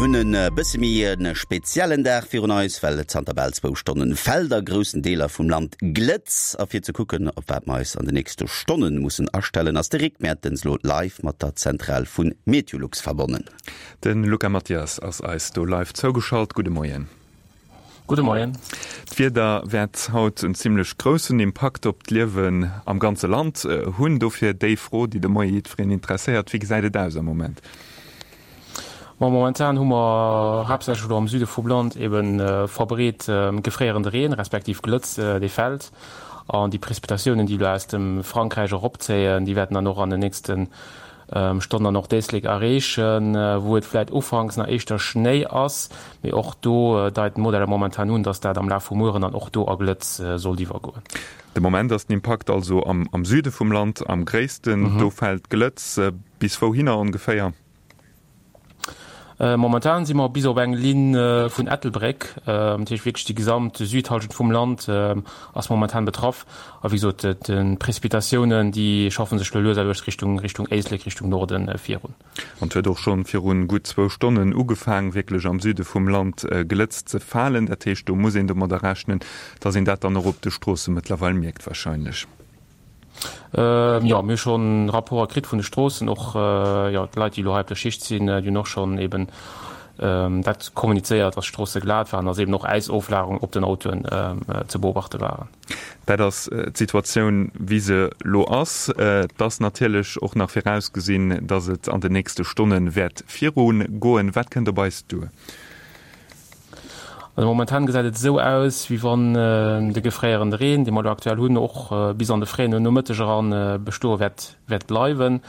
Mir hunn e bësse méi e speziellen Dag virun eis, well et zanter bal zwou Stonnen fält a groussen Deeler vum Land Glëtz. A fir ze kucken, op wat mer eis an de nächste Stonne mussen astellen, ass de Rick Mertens lo live mat der Zentral vu Meteolux verbonnen. De Luca Mathias ass eis do live zougeschalt. Gudde Moien. Gudde Moien. D'Wieder wäert haut en zimmlech groussen Impakt op d'Liewen am ganze Land hunn. Dofir déi Fro, déi de Moie jiddwereen interesséiert, Wéi gesäit et aus am Moment? Ma momentan hu mer haaptsächlech elo am Süde vum Land ebe verbreet gefréierende Reen, respektiv Glëtz, dee fält. An déi Prezipitatiounen, déi elo aus dem Frankräich eropzéien, déi wäerten dann och an den nächsten Stonn dann och d'Éislek erreechen, wou et vläit ufanks nach éischter Schnéi ass, mee och do deiten d'Modeller momentan un, dass dat am Laf vum Mueren dann och do a Glëtz sollt iwwergoen. De Moment ass den Impakt also am Süde vum Land am gréissten, do fält Glëtz. Bis wouhinner ongeféier? Momentan si mer bis op eng Linn vun Ettelbréck, dat heescht wierklech déi gesamt Südhallschent vum Land ass momentan betraff. A wéi gesot, d'Précipitatiounen, déi schaffe sech elo lues a lues Richtung Richtung Éislek, Richtung Norde virun. An et huet och schonn virun gutt zwou Stonnen ugefaang, wierklech am Süde vum Land Glëtz ze falen. Dat heescht, do muss een domadder rechnen, dass een dat dann och op de Stroosse mëttlerweil mierkt warscheinlech. Jo, mir hu schonn Rapporter kritt vun de Stroossen, och jo d'Leit, déi elo hei op der Schicht sinn, déi hunn och schonn eben dat kommunizéiert, dass d'Stroosse glat waren, dass eben och Äisoflagerung op den Autoen ze beobachte waren. Dat ass d'Situatioun, wéi se elo ass. Et ass natierlech och nach virausgesinn, dass et an den nächste Stonne wäert virugoen. Wat kënnt op eis duer? Also momentan gesäit et esou aus, wéi wann de gefréierende Reen, dee mer elo aktuell hunn, och bis an de fréien Nomëtteg eran bestoe wäert wäert bleiwen.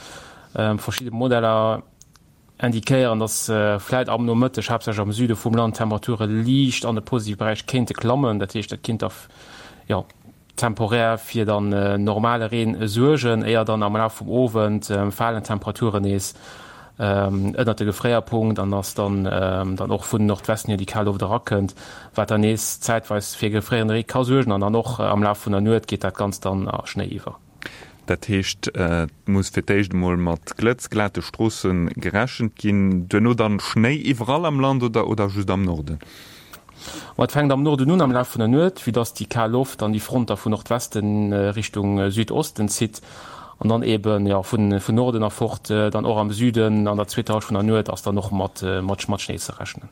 Verschidde Modeller indiquéieren, dass vläit am Nomëtteg, haaptsächlech am Süde vum Land, d'Temperature liicht an de positive Beräich kéinte klammen. Dat heescht, dat kinnt da jo temporär fir dann normale Reen suergen, éier dann am Laf vum Owend falen d'Temperaturen nees ënnert de Gefréierpunkt an dass dann dann och vun Nordwesten hier déi kal Loft erakënnt, wat dann nees zäitweis fir gefréierende Ree ka suergen an dann och am Laf vun der Nuet geet dat Ganzt dann a Schnéi iwwer. Dat heescht, et muss fir d'éischt emol mat Glëtz, glate Stroosse gerechent ginn, duerno dann Schnéi iwwerall am Land oder oder just am Norden? Ma et fänkt am Norden un am Laf vun der Nuet, vue dass déi kal Loft dann déi Front da vu Nordwesten Richtung Südosten zitt an dann eben, jo, vun Norden erfort dann och am Süden an der zweeter Hallschent vun der Nuet ass dann och mat mat Schnéi ze rechnen.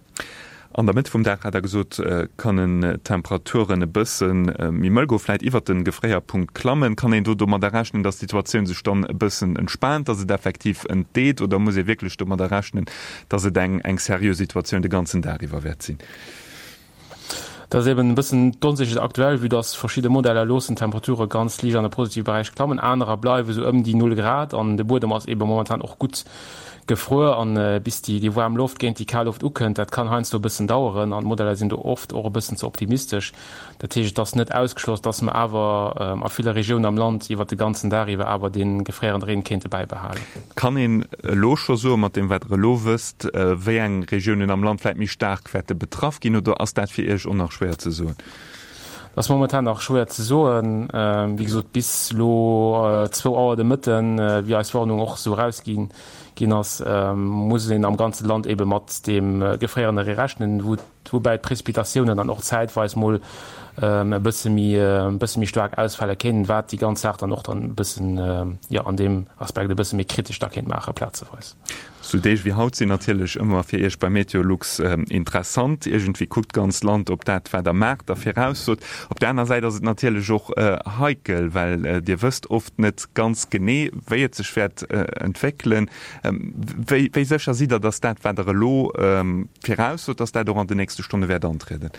An der Mëtt vum Dag, hat Der gesot, kënnen d'Temperaturen e bësse méi mëll goen, vläit iwwert de Gefréierpunkt klammen. Kann een do domadder rechnen, dass d'Situatioun sech dann e bëssen entspaant, dass et effektiv entdeet, oder muss ee wierklech domadder rechnen, dass et eng eng seriö Situatioun de ganzen Dag iwwer wäert sinn? Dat ass eben e bëssen d'Onsécherheet aktuell, vue dass verschidde Modeller loossen d'Temperature ganz liicht an de positive Beräich klammen, anerer bleiwe sou ëm déi Null Grad an de Buedem ass ebe momentan och gutt gefruer an bis déi waarm Loft géint déi kal Loft ukënnt, dat kann heiansdo e bëssen daueren an d'Modeller sinn do oft och e bëssen ze optimistesch. Dat heescht, et ass net ausgeschloss, dass mer awer a ville Regiounen am Land iwwert de ganzen Dag iwwer awer dee gefréierende Reen kéinte bäibehalen. Kann een elo scho soen, mat deem wat Der elo wësst, wéi eng Regiounen am Land vläit méi staark wäerte betraff ginn, oder ass dat fir Iech och nach schwéier ze soen? Dat ass momentan nach schwéier ze soen. Wéi gesot, bis elo zwou Auer de Mëtten, wéi eis Warnung och esou erausgi ginn ass, muss een am ganze Land eebe mat deem gefréierende Ree rechnen, wou woubäi d'Précipitatiounen dann och zäitweis mol e bësse méi e bësse méi staark ausfale kéinten, wat déi ganz Saach dann och dann e bëssen, jo, an deem Aspekt e bësse méi kritesch da kéint maache plazeweis. Sou Deeg wéi haut sinn natierlech ëmmer fir Iech bei Meteolux interessant. Iergendwéi kuckt d'ganz Land op dat, wat Der maacht a viraussot. Op der aner Säit ass et natierlech och heikel, well Dir wësst oft net ganz genee, wéi et sech wäert entwéckelen. Wéi sécher sidd Der, datt dat, wat Der elo viraussot, datt dat och an den nächste Stonne wäert antrieden?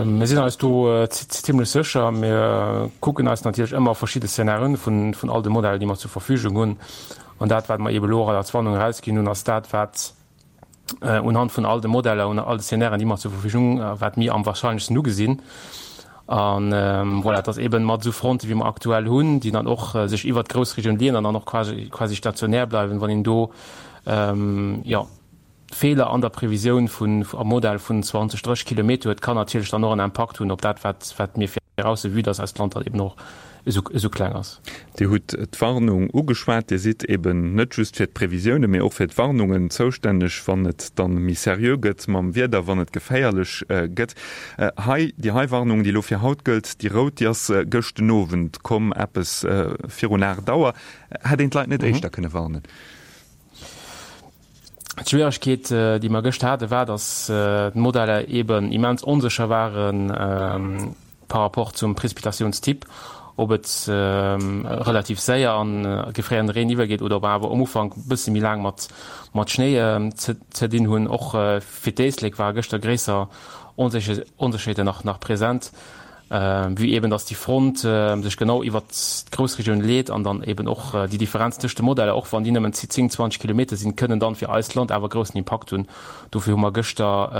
Mir sinn eis do zimlech sécher. Mir kucken eis natierlech ëmmer verschidde Szenarien vun all de Modeller, déi mer zur Verfügung hunn. An dat, wat mer eebe elo och als Warnung erausginn hunn, ass dat, wat unhand vun all de Modeller, un all de Szenarien, déi mer zur Verfügung hunn, wat mir am wahrscheinlechsten ugesinn. An voilà, et ass eeben mat esou Fronte wéi mer aktuell hunn, déi dann och sech iwwert d'Groussregioun leeën an dann och quasi quasi stationär bleiwen, wann een do jo Feeler an der Previsioun vun am Modell vun 20, 30 Kilometer huet, kann natierlech dann och en Impakt hunn op dat, wat wat mir virausse, vue dass eist Land dann eeben och. Esou kleng ass. Dir hutt d'Warnung ugeschwat. Dir sidd eben net just fir d'Previsiounen, mee och fir d'Warnungen zoustänneg, wann et dann méi seriö gëtt mam Wieder, wann et geféierlech gëtt. Hei, déi hei Warnung, déi elo fir haut gëllt, déi rout, déi ass gëscht den Owend komm, eppes virun 8 Auer. Hätt een d'Leit net éischter kënne warnen? D'Schwieregkeet, déi mer gëscht haten, war, dass d'Modeller eeben immens onsécher ware par rapport zum Prezipitationstyp, ob et relativ séier an gefréierende Reen iwwergeet oder ob mer awer um Ufank e bësse méi laang mat Schnéi ze dinn hunn. Och fir d'Éislek ware gëschter gréisser Onsécherheeten nach present. Vue eben dass déi Front sech genau iwwert d'Groussregioun leet an dann eben och déi Differenz tëscht de Modeller, och wann déi nëmmen 10, 20 Kilometer sinn, kënnen dann fir eist Land awer groussen Impakt hunn. Dofir hu mer gëschter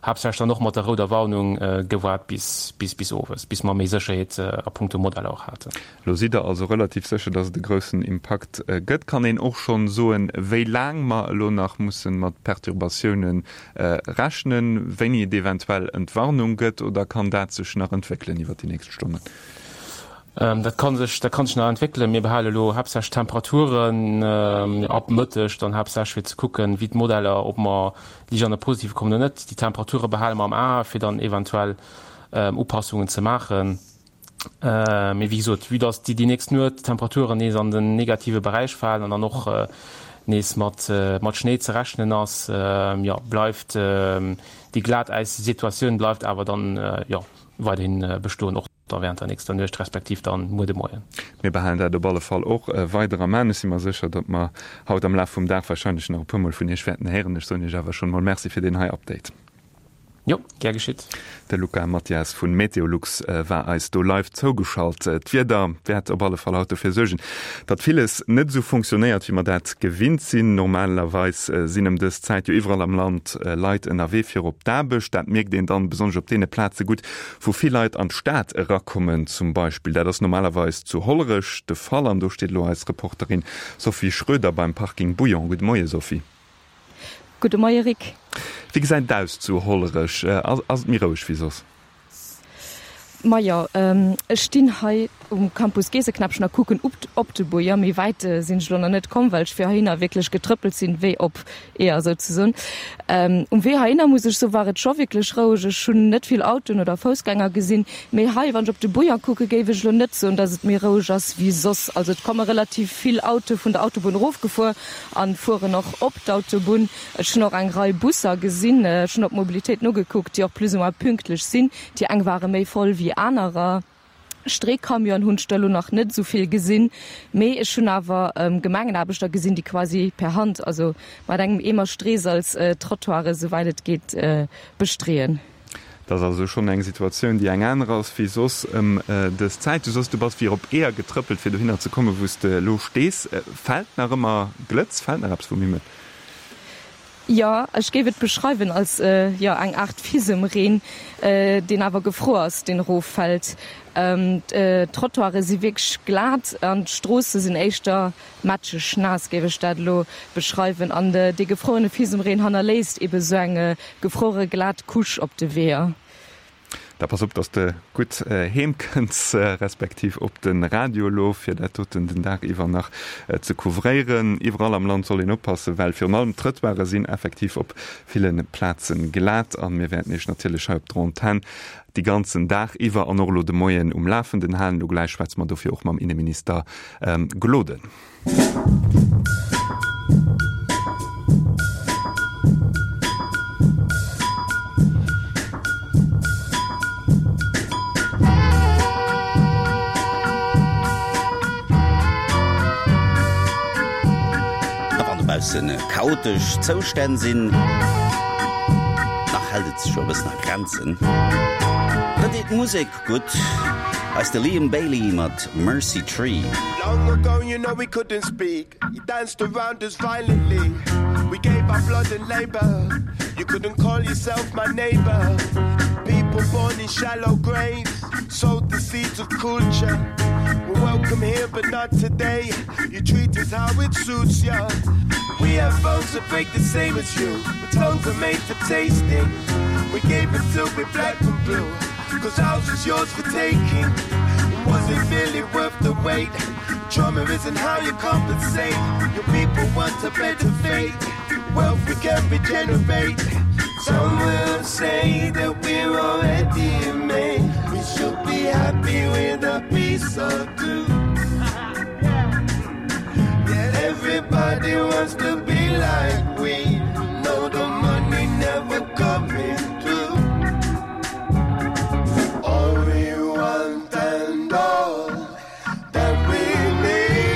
haaptsächlech dann och mat der rouder Warnung gewaart bis bis owes, bis mer méi Sécherheet a punkto Modeller och haten. Lo sidd Der also relativ sécher, dass et e groussen Impakt gëtt. Kann een och schonn soen, wéi laang mer elo nach musse mat Perturbatiounen rechnen, wéini et eventuell Entwarnung gëtt, oder kann dat sech nach entwéckelen iwwert déi nächst Stonnen? Dat kann sech, dat kann sech nach entwéckelen. Mir behale elo haaptsächlech d'Temperaturen ab Mëtteg dann haaptsächlech, fir ze kucken, wéi d'Modeller, ob mer liicht an de Positive kommen oder net. Déi Temperature behale mer am A, fir dann eventuell Upassungen ze maachen. Mee wéi gesot, vue dass déi nächst Nuet d'Temperaturen nees an den negative Beräich falen an dann och nees mat Schnéi ze rechnen ass, jo, bleift déi Glatäissituatioun bleift awer dann, jo, weiderhi bestoen, och da während der nächster Nuecht respektiv dann muer de Moien. Mir behalen dat op alle Fall och weider am An. Ech si mer sécher, datt mer haut am Laf vum Dag warscheinlech nach e puermol vun Iech wäerten héieren. Ech soen Iech awer schonn emol Merci fir deen hei Update. Jo, gär geschitt. De Luca Mathias vun Meteolux war eis do live zougeschalt. D'Wieder wäert op alle Fall haut dofir suergen, datt villes net esou funktionéiert, wéi mer dat gewinnt sinn. Normalerweis sinn ëm dës Zäit jo iwwerall am Land Leit ënnerwee fir op d'Aarbecht. Dat mierkt een dann besonnesch op deene Plaze gutt, wou vill Leit an d'Stad erakommen zum Beispill. Dat ass normalerweis zu Hollerech de Fall an do steet elo eis Reporterin Sophie Schroeder beim Parking Bouillon. Gudde Moie Sophie. Gudde Moie Rick. Wéi gesäit et aus zu Hollerech? Ass et méi roueg wéi soss? Majo, ech stinn hei um Campus Geeseknäppchen a kucken op de Buer. Méi wäit sinn ech elo nach net komm, well ech fir heihinner wierklech getrëppelt sinn, wéi op Eeër souzesoen. Um Wee heihinner muss ech soen, war et scho wierklech roueg. Ech hunn net vill Autoen oder Foussgänger gesinn. Mee hei, wann ech op de Buer kucken, géif ech elo net soen, datt et méi roueg ass wéi soss. Also et komme relativ vill Autoe vun der Autobunn erofgefuer. An fueren och op d'Autobunn. Ech hunn och eng Rei Busser gesinn. Ech hunn op d'Mobilitéit nogekuckt, déi och plus ou moins pünktlech sinn. Déi eng ware méi voll wéi anerer. Streecamionen hunn ech der elo nach net esou vill gesinn, mee ech hunn awer Gemengenaarbechter gesinn, déi quasi per Hand, also mat engem Eemer Streesalz, d'Trottoiren, esouwäit et geet, bestreeën. Et ass also schonn eng Situatioun, déi eng aner ass wéi soss ëm dës Zäit. Du soss, du bass wéi op Eeër getrëppelt, fir dohinner ze kommen, wou s de elo stees. Fält nach ëmmer Glëtz? Fält nach eppes vum Himmel? Jo, ech géif et beschreiwen als, jo, eng Aart Fisemreen, deen awer gefruer ass, deen eroffält. D'Trottoiре si wierklech glat an d'Stroosse sinn éischter Matscheg naass géif ech dat elo beschreiwen. An dee gefrouene Fisemreen hannerléisst ebe sou eng gefruere glat Couche op de Weeër. Da pass op, dass de gutt heem kënns, respektiv op de Radio elo, fir dat doten den Dag iwwer nach ze couvréieren. Iwwerall am Land soll een oppassen, well virun allem d'Trëttoire sinn effektiv op ville Plaze glat. A mir wäerten Iech natierlech hei op der Antenn déi ganzen Dag iwwer an och elo de Moien um Lafenden halen. Elo gläich schwätze mer dofir och mam Inneminister Gloden. A wann dobausse chaotesch Zoustänn sinn, nach hält et sech jo e bëssen a Grenzen. Da deet d'Musek gutt. Eis de Liam Bailey mat Mercy Tree. Long ago you know we couldn't speak You danced around us violently We gave our blood and labor You couldn't call yourself my neighbor People born in shallow graves Sowed the seeds of culture We're welcome here but not today You treat us how it suits ya We have bones that break the same as you But tongues are made for tasting We gave it till we're black and blue Cause ours is yours for taking. Was it really worth the wait? Trauma isn't how you compensate. Your people want a better fate. Wealth we can regenerate. Some will say that we're already made. We should be happy with a piece or two. Yeah, everybody wants to be like we. No, the money never coming through. All we want and all that we need.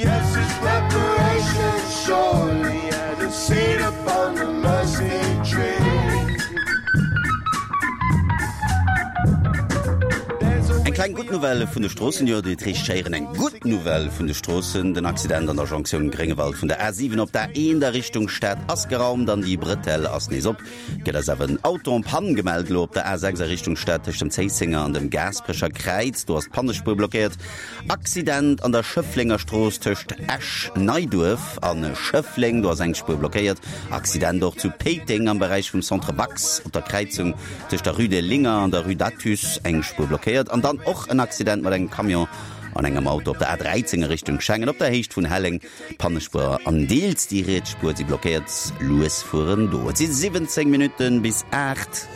Yes, it's reparation surely and a seat upon the mercy tree. Eng kleng gutt Nouvelle vun de Stroossen, jo, déi heescht schéieren eng gutt Nouvelle vun de Stroossen. Den Accident an der Jonktioun Gréngewald vun der A7 op der A1 a Richtung Stad ass geraumt an déi Bretelle ass nees op. Gëtt eis awer en Auto en panne gemellt elo op der A6 a Richtung Stad tëscht dem Zéissenger an dem Gaasperecher Kräiz. Do ass d'Pannespuer blockéiert. Accident an der Schëfflenger Strooss tëscht Esch-Neiduerf a Schëffleng. Do ass eng Spuer blockéiert. Accident och zu Péiteng am Beräich vum Centre Bax op der Kräizung tëscht der Rue des Linger an der Rue d'Athus eng Spuer blockéiert. An dann och en Accident mat engem Camion an engem Auto op der A13 a Richtung Schengen op der Héicht vun Helleng. D'Pannespuer an deels déi riets Spuer si blockéiert. Lues fueren do. Et si 17 Minutten bis 8.